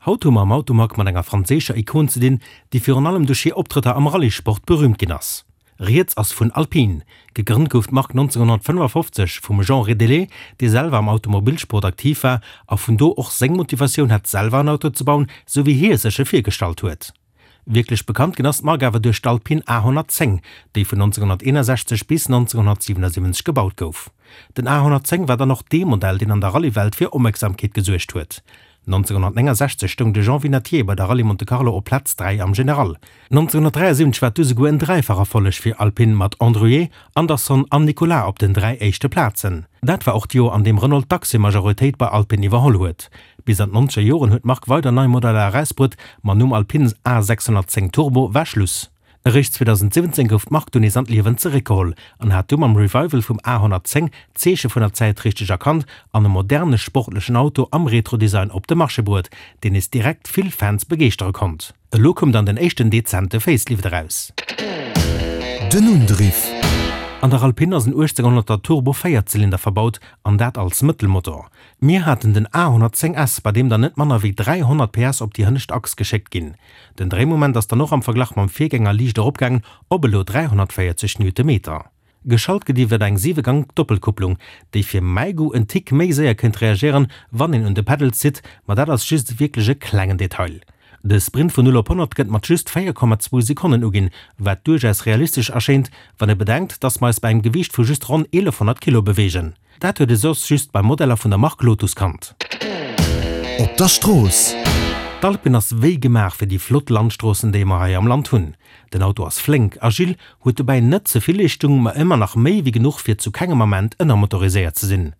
Haut hu mer am Automag mat enger franséischer Ikon ze dinn, déi virun allem duerch hir Optrëtter am Rallye-Sport berüümt ginn ass. Rieds ass vun Alpine. Gegrënnt gouf d'Mark 1955 vum Jean Rédélé, dee selwer am Automobilsport aktiv war a vun do och seng Motivatioun hat selwer en Auto ze bauen, sou wéi hie sech e virgestallt huet. Wierklech bekannt ginn ass d'Mark awer duerch d'Alpine A 110, déi vun 1961 bis 1977 gebaut gouf. Den A 110 war dann och dee Modell, deen an der Rallye-Welt fir Opmierksamkeet gesuergt huet. 1969 stoung de Jean Vinatier bei der Rallye Monte Carlo op Plaz 3 am General. 1973 war et du souguer en Dräifach-Erfolleg fir Alpine mat Andruet, Andersson an Nicolas op den 3 éischte Plazen. Dat war och d'Joer an deem Renault d'Aktiemajoritéit bei Alpine iwwerholl huet. Bis an d'nonzeger Joren huet d'Mark weider nei Modeller erausbruet, ma nom Alpine A 610 Turbo war Schluss. Eréischt 2017 gouf d'Mark dunn nees an d'Liewen zeréckgeholl an hat du mam Revival vum A 110 d'Zeeche vun der Zäit richteg erkannt an e moderne sportlechen Auto am Retro-Design op de Marché bruet, deen nees direkt vill Fans begeeschtere konnt. Elo koum dann den éischten dezente Facelift eraus. Den Undriff. An der Alpine ass en 1800er Turbo Véierzylinder verbaut an dat als Mëttelmotor. Mir haten den A 110 S, bei deem dann net manner wéi 300 PS op déi hënnescht Achs geschéckt ginn. Den Dréimoment ass dann och am Verglach mam Virgänger liicht eropgaangen op elo 340 Newtonmeter. Geschalt gëtt iwwert eng 7 Gank Doppelkupplung, déi fir mäi Goût en Tick méi séier kéint reagéieren, wann een un de Pedals zitt, ma dat ass just wierklech e klengen Detail. De Sprint vun 0 op 100 gëtt mat just 4,2 Sekonnen uginn, wat duerchaus realistesch erschéint, wann ee bedenkt, dass mer eis bei engem Gewiicht vu just ronn 1100 Kilo beweegen. Dat huet e soss just bei Modeller vun der Mark Lotus kannt. Op der Strooss. D'Alpine ass wéi gemaach fir déi flott Landstroossen déi mer hei am Land hunn. Den Auto ass flénk, agil, huet dobäi net ze vill Leeschtung, ma ëmmer nach méi wéi genuch fir zu kengem Ament ënnermotoriséiert ze sinn.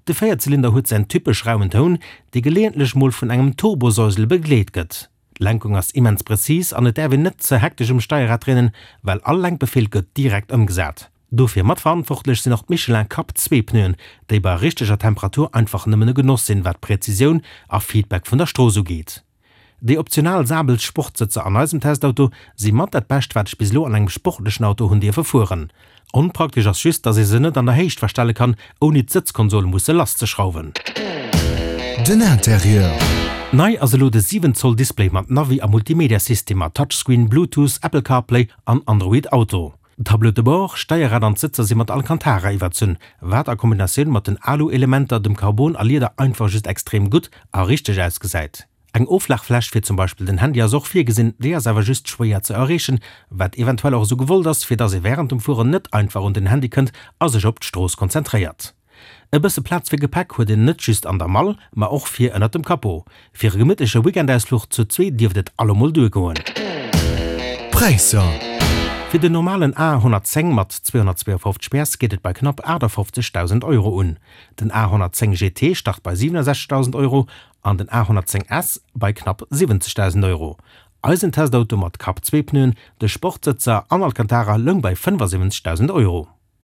De Véierzylinder huet säin typesch rauen Toun, dee geleeëntlech mol vun engem Turbosäusele begleet gëtt. D'Lenkung ass immens präzis an et däerf een net ze hektesch um Steierrad dréinen, well all Lenkbefeel gëtt direkt ëmgesat. Dofir matverantwortlech sinn och d'Michelin Cup 2 Pneuen, déi bei richteger Temperatur einfach nëmmen e Genoss sinn, wat Präzisioun a Feedback vun der Strooss ugeet. Déi optional Sabel Sportsëtzer an eisem Testauto si mat dat Bescht wat ech bis elo an engem sportlechen Auto hunn dierfe fueren. Onpraktesch ass just, dass ee se net an der Héicht verstelle kann, ouni d'Sëtzkonsol musse lasszeschrauwen. Den Interieur. Nei ass elo de 7 Zoll Display mat Navi a Multimedia-System mat Touchscreen, Bluetooth, Apple CarPlay an Android Auto. D'Tableau de bord, Steierrad an d'Sëtzer si mat Alcantara iwwerzunn, wat a Kombinatioun mat den Alu-Elementer, dem Carbon a Lieder einfach just extrem gutt a richteg ausgesäit. Eng Oflagfläch fir zum Beispill den Handy ass och virgesinn, déi ass awer just schwéier ze erreechen, wat eventuell och esou gewollt ass, fir dass ee wärend dem Fueren net einfach un den Handy kënnt a sech op d'Strooss konzentréiert. E bësse Plaz fir Gepäck huet een net just an der Mall, ma och vir ënnert dem Capot. Fir e gemittleche Weekendausfluch zu zwee dierft et allemol duergoen. Präisser. Fir den normalen A 110 mat 252 PS geet et bei knapp 58.000 Euro un. Den A 110 GT start bei 67.000 Euro an den A 110 S bei knapp 70.000 Euro. Eisen Testauto mat Kap-Zweepneuen, de Sportsëtzer an Alcantara loung bei 75.000 Euro.